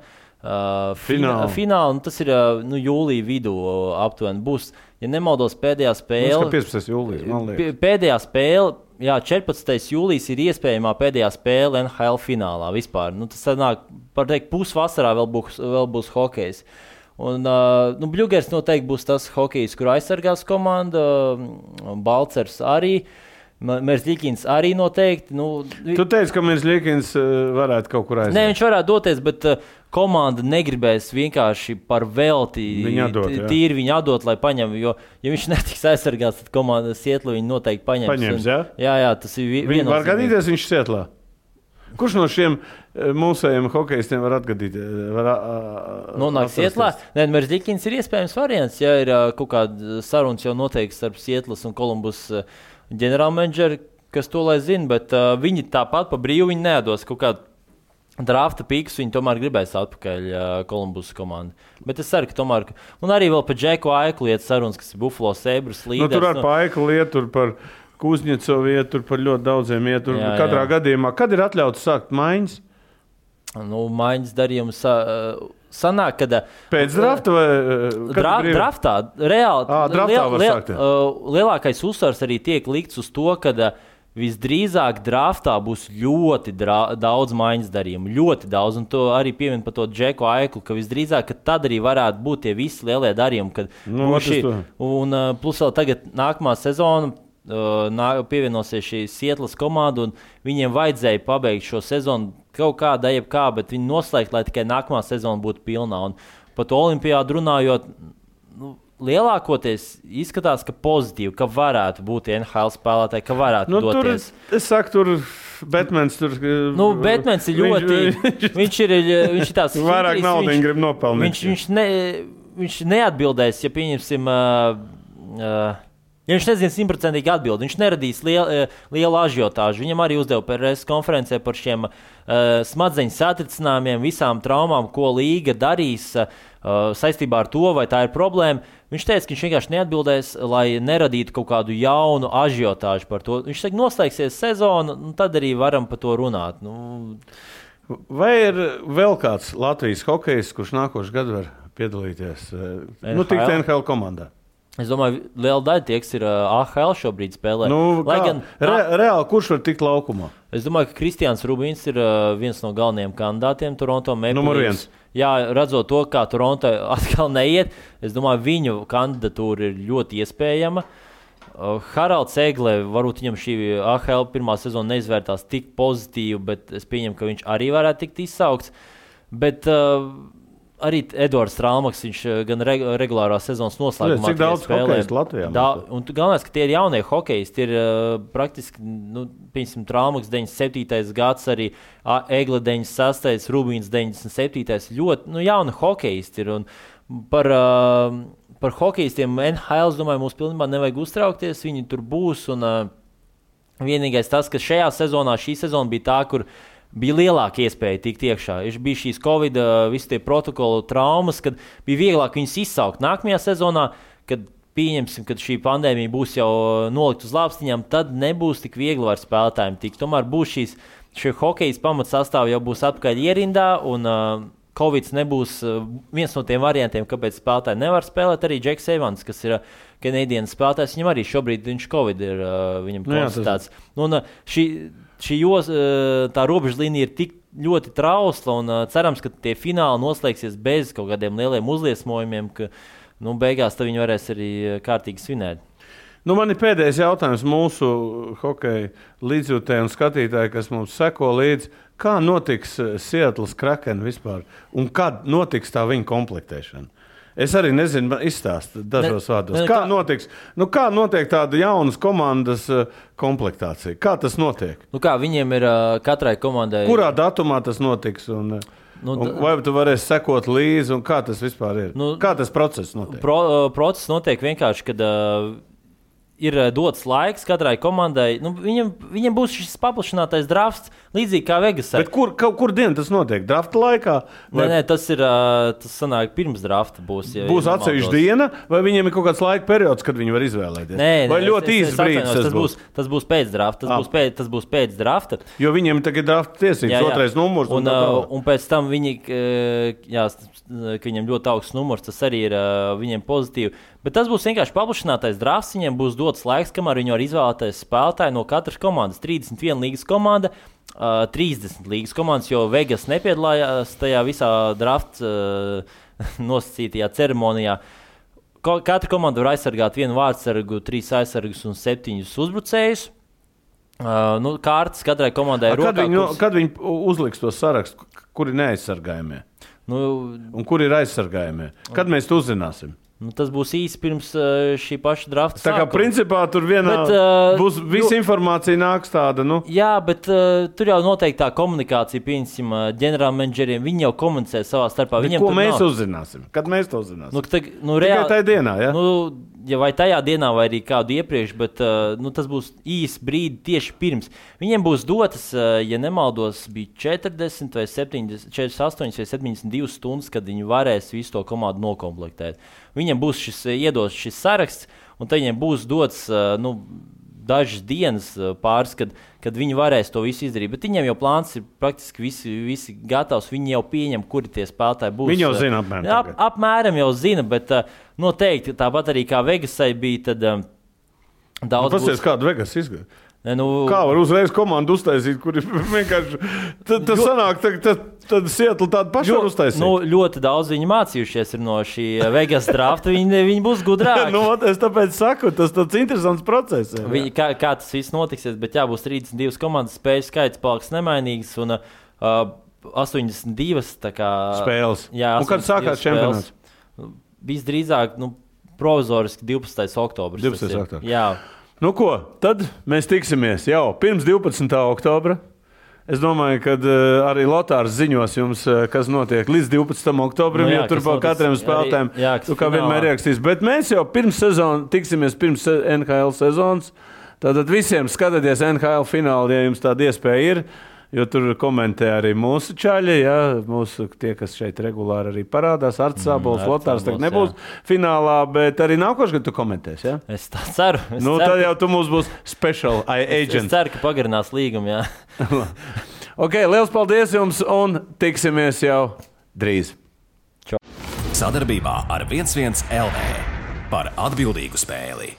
fināla. Tas ir jūlija vidū aptuveni. Būs, ja nemaldos, pēdējā spēle. 15. jūlijas, man liekas. Pēdējā spēle, 14. jūlijas ir iespējamā pēdējā spēle NHL finālā vispār. Tas sanāk, par teikt, pusvasarā vēl būs hokejs. Un Bļugers noteikti būs tas hokejs, kur aizsargās komanda, Balcers arī, Merzlikins arī noteikti. Tu teici, ka Merzlikins varētu kaut kur aiziet. Nē, viņš varētu doties, bet komanda negribēs vienkārši par velti tīri viņu atdot, lai paņem, jo, ja viņš netiks aizsargāts, tad komanda Sietlu viņu noteikti paņems. Jā, tas ir viennozīmīgi. Viņi var gadīties viņš Sietlā? Kurš no šiem mūsējiem hokejistiem var atgadīt? Nonāk Sietlā? Nē, Merzlikins ir iespējams variants, ja ir kaut kāda sarunas jau noteikti starp Sietlas un Kolumbus ģenerālmenedžeri, kas to lai zina, bet viņi tāpat pa brīvu viņi nedos kaut kādu drafta pīkus, viņi tomēr gribēs atpakaļ Kolumbus komandu. Bet es ceru, ka tomēr, un arī vēl par Džeku Aiklu iet sarunas, kas ir Buffalo Sabres līderis. Tur ar pa Aiklu iet, tur par Kuzņecovu iet, tur par ļoti daudziem iet. Katrā gadījumā, kad ir atļauts sākt maiņas? Maiņas darījums sanāk, kad pēc drafta vai draftā reāli draftā var sākt. Lielākais uzsvars arī tiek likts uz to, ka visdrīzāk draftā būs ļoti daudz maiņas darījumu, ļoti daudz, un to arī piemin par to Džeku Aiklu, ka visdrīzāk, ka tad arī varētu būt tie visi lielie darījumi, kad un plus vēl tagad nākamā sezona pievienosies šī Sietlas komanda, un viņiem vajadzēja pabeigt šo sezonu kaut kādā jebkā, bet viņi noslēgt, lai tikai nākamā sezona būtu pilnā. Un par to olimpiādu runājot, lielākoties izskatās, ka pozitīvi, ka varētu būt NHL spēlētāji, ka varētu doties. Es saku, tur Batmans tur... Batmans ir ļoti... viņš ir tās... Vairāk naudiņu grib nopelnīt. Viņš neatbildēs, ja pieņemsim... Ja viņš nezina 100% atbildi, viņš neradīs lielu ažiotāžu. Viņam arī uzdeva PRS konferencē par šiem smadzeņu satricinājumiem, visām traumām, ko līga darīs saistībā ar to, vai tā ir problēma. Viņš teica, ka viņš vienkārši neatbildēs, lai neradītu kaut kādu jaunu ažiotāžu par to. Viņš teica, noslēgsies sezona, tad arī varam par to runāt. Vai ir vēl kāds Latvijas hokejs, kurš nākošu gadu var piedalīties? Tikt NHL komandā. Es domāju, liela daļa tie, kas ir AHL šobrīd spēlē. Reāli, kurš var tikt laukumā? Es domāju, ka Kristians Rubīns ir viens no galvenajiem kandidātiem Toronto Maple Leafs. Jā, redzot to, kā Toronto atkal neiet, es domāju, viņu kandidatūra ir ļoti iespējama. Haralds Egle, varbūt viņam šī AHL pirmā sezona neizvērtās tik pozitīvi, bet es pieņemu, ka viņš arī varētu tikt izsaukts. Bet... Arī Edvards Strālmaks, viņš gan regulārā sezonas noslēgumā cik daudz hokejistu Latvijā? Un galvenais, ka tie ir jaunie hokejisti, ir praktiski, piemēram, Strālmaks 97. gads, arī Egle 96. Rubīns 97. Ļoti jauni hokejisti ir. Un par hokejistiem NHL, es domāju, mums pilnībā nevajag uztraukties, viņi tur būs. Un vienīgais tas, ka šī sezona bija tā, kur bija lielāka iespēja tikt iekšā. Bija šīs Covid, visi tie protokolu traumas, kad bija vieglāk viņus izsaukt. Nākamajā sezonā, kad pieņemsim, ka šī pandēmija būs jau nolikt uz lāpstiņām, tad nebūs tik viegli var spēlētājiem tikt. Tomēr būs šie hokejas pamatsastāvi jau būs atpakaļ ierindā, un Covid nebūs viens no tiem variantiem, kāpēc spēlētāji nevar spēlēt. Arī Džeks Evans, kas ir Canadiens spēlētājs, viņam arī šobrīd Covid ir viņam konstatēts. Un tā robežlīnija ir tik ļoti trausla, un cerams, ka tie fināli noslēgsies bez kaut kādiem lieliem uzliesmojumiem, ka beigās viņi varēs arī kārtīgi svinēt. Man ir pēdējais jautājums mūsu hokeja līdzjūtēji un skatītāji, kas mums seko līdzi. Kā notiks Seattles Kraken vispār? Un kad notiks tā viņa komplektēšana? Es arī nezinu, izstāstu dažos vārdos. Kā notiks? Kā notiek tāda jaunas komandas komplektācija? Kā tas notiek? Kā viņiem ir katrai komandai? Kurā datumā tas notiks? Un vai tu varēsi sekot līdzi? Un kā tas vispār ir? Kā tas process notiek? Process notiek vienkārši, kad ir dots laiks katrai komandai. Viņam būs šis paplašinātais drafts, līdzīgi kā Vegasā. Bet kur diena tas notiek? Drafta laikā? Nē, tas sanāk pirms drafta būs. Būs atsevišķa diena, vai viņiem ir kaut kāds laika periods, kad viņi var izvēlēties? Vai ļoti īsts brīdis tas būs pēc drafta. Tas būs pēc drafta. Jo viņiem tagad ir drafta tiesības, otrais numurs. Un pēc tam viņi, ka viņiem ļoti augsts numurs, tas arī ir viņiem pozitīvi. Bet tas būs vienkārši paplašinātais drafts. Viņiem būs dots laiks, kamēr viņi var izvēlēties spēlētāju no katras komandas. 31 līgas komanda, 30 līgas komandas, jo Vegas nepiedalījās tajā visā drafta nosacītajā ceremonijā. Katra komanda var aizsargāt vienu vārdsargu, 3 aizsargus un 7 uzbrucējus. Kārtas katrai komandai ir rokā. Kad viņi uzliks to sarakstu, kuri neaizsargājumie? Un kuri ir aizsargājumie? Kad mēs to uzzināsim? Tas būs īsi pirms šī paša drafta sākuma. Tā kā principā tur būs visa informācija nāks tāda, Jā, bet tur jau noteikti tā komunikācija, pieņemsim, ģenerālmenedžeriem, viņi jau komunicē savā starpā. Ko mēs uzzināsim? Kad mēs to uzzināsim? Tikai tajā dienā, ja? Vai tajā dienā, vai arī kādu iepriekš, bet tas būs īsi brīdi tieši pirms. Viņiem būs dotas, ja nemaldos, bija 40 vai 70, 48 vai 72 stundas, kad viņi varēs visu to komandu nokomplektēt. Viņiem būs iedos šis saraksts, un tad viņiem būs dots dažas dienas pāris, kad viņi varēs to visu izdarīt. Bet viņiem jau plāns ir praktiski visi gatavs. Viņi jau pieņem, kuri tie spēlētāji būs. Viņi jau zina apmēram. Apmēram jau zina, bet noteikti tāpat arī kā Vegasai bija, tad daudz būs. Pasies, kādu Vegas izgāja? Kā var uzreiz komandu uztaisīt, kuri vienkārši tas sanāk, tad Seattle tādu pašu var uztaisīt? Ļoti daudz viņi mācījušies ir no šī Vegas drafta, viņi būs gudrāki. Es tāpēc saku, tas tāds interesants process. Kā tas viss notiksies, bet būs 32 komandas, spēļu skaits paliks nemainīgs un 82 spēles. Jā, un kad sākās čempionāts? Visdrīzāk, provizoriski 12. oktobris. 12. oktobris. Jā. Tad mēs tiksimies jau pirms 12. oktobra. Es domāju, ka arī Lotārs ziņos jums, kas notiek līdz 12. oktobrim, jo tur vēl katram spēlētājiem, kā vienmēr ierakstīs. Bet mēs jau tiksimies pirms NHL sezonas. Tātad visiem skatieties NHL finālu, ja jums tāda iespēja ir. Jo tur komentē arī mūsu čaļi, mūsu tie, kas šeit regulāri arī parādās. Arts Sābols, Lotārs tagad nebūs finālā, bet arī nākošais, kad tu komentēsi, ja? Es tā ceru. Tad jau tu mums būs special agent. Es ceru, ka pagarinās līgumu, jā. Ok, liels paldies jums un tiksimies jau drīz. Sadarbībā ar 11 LV par atbildīgu spēli.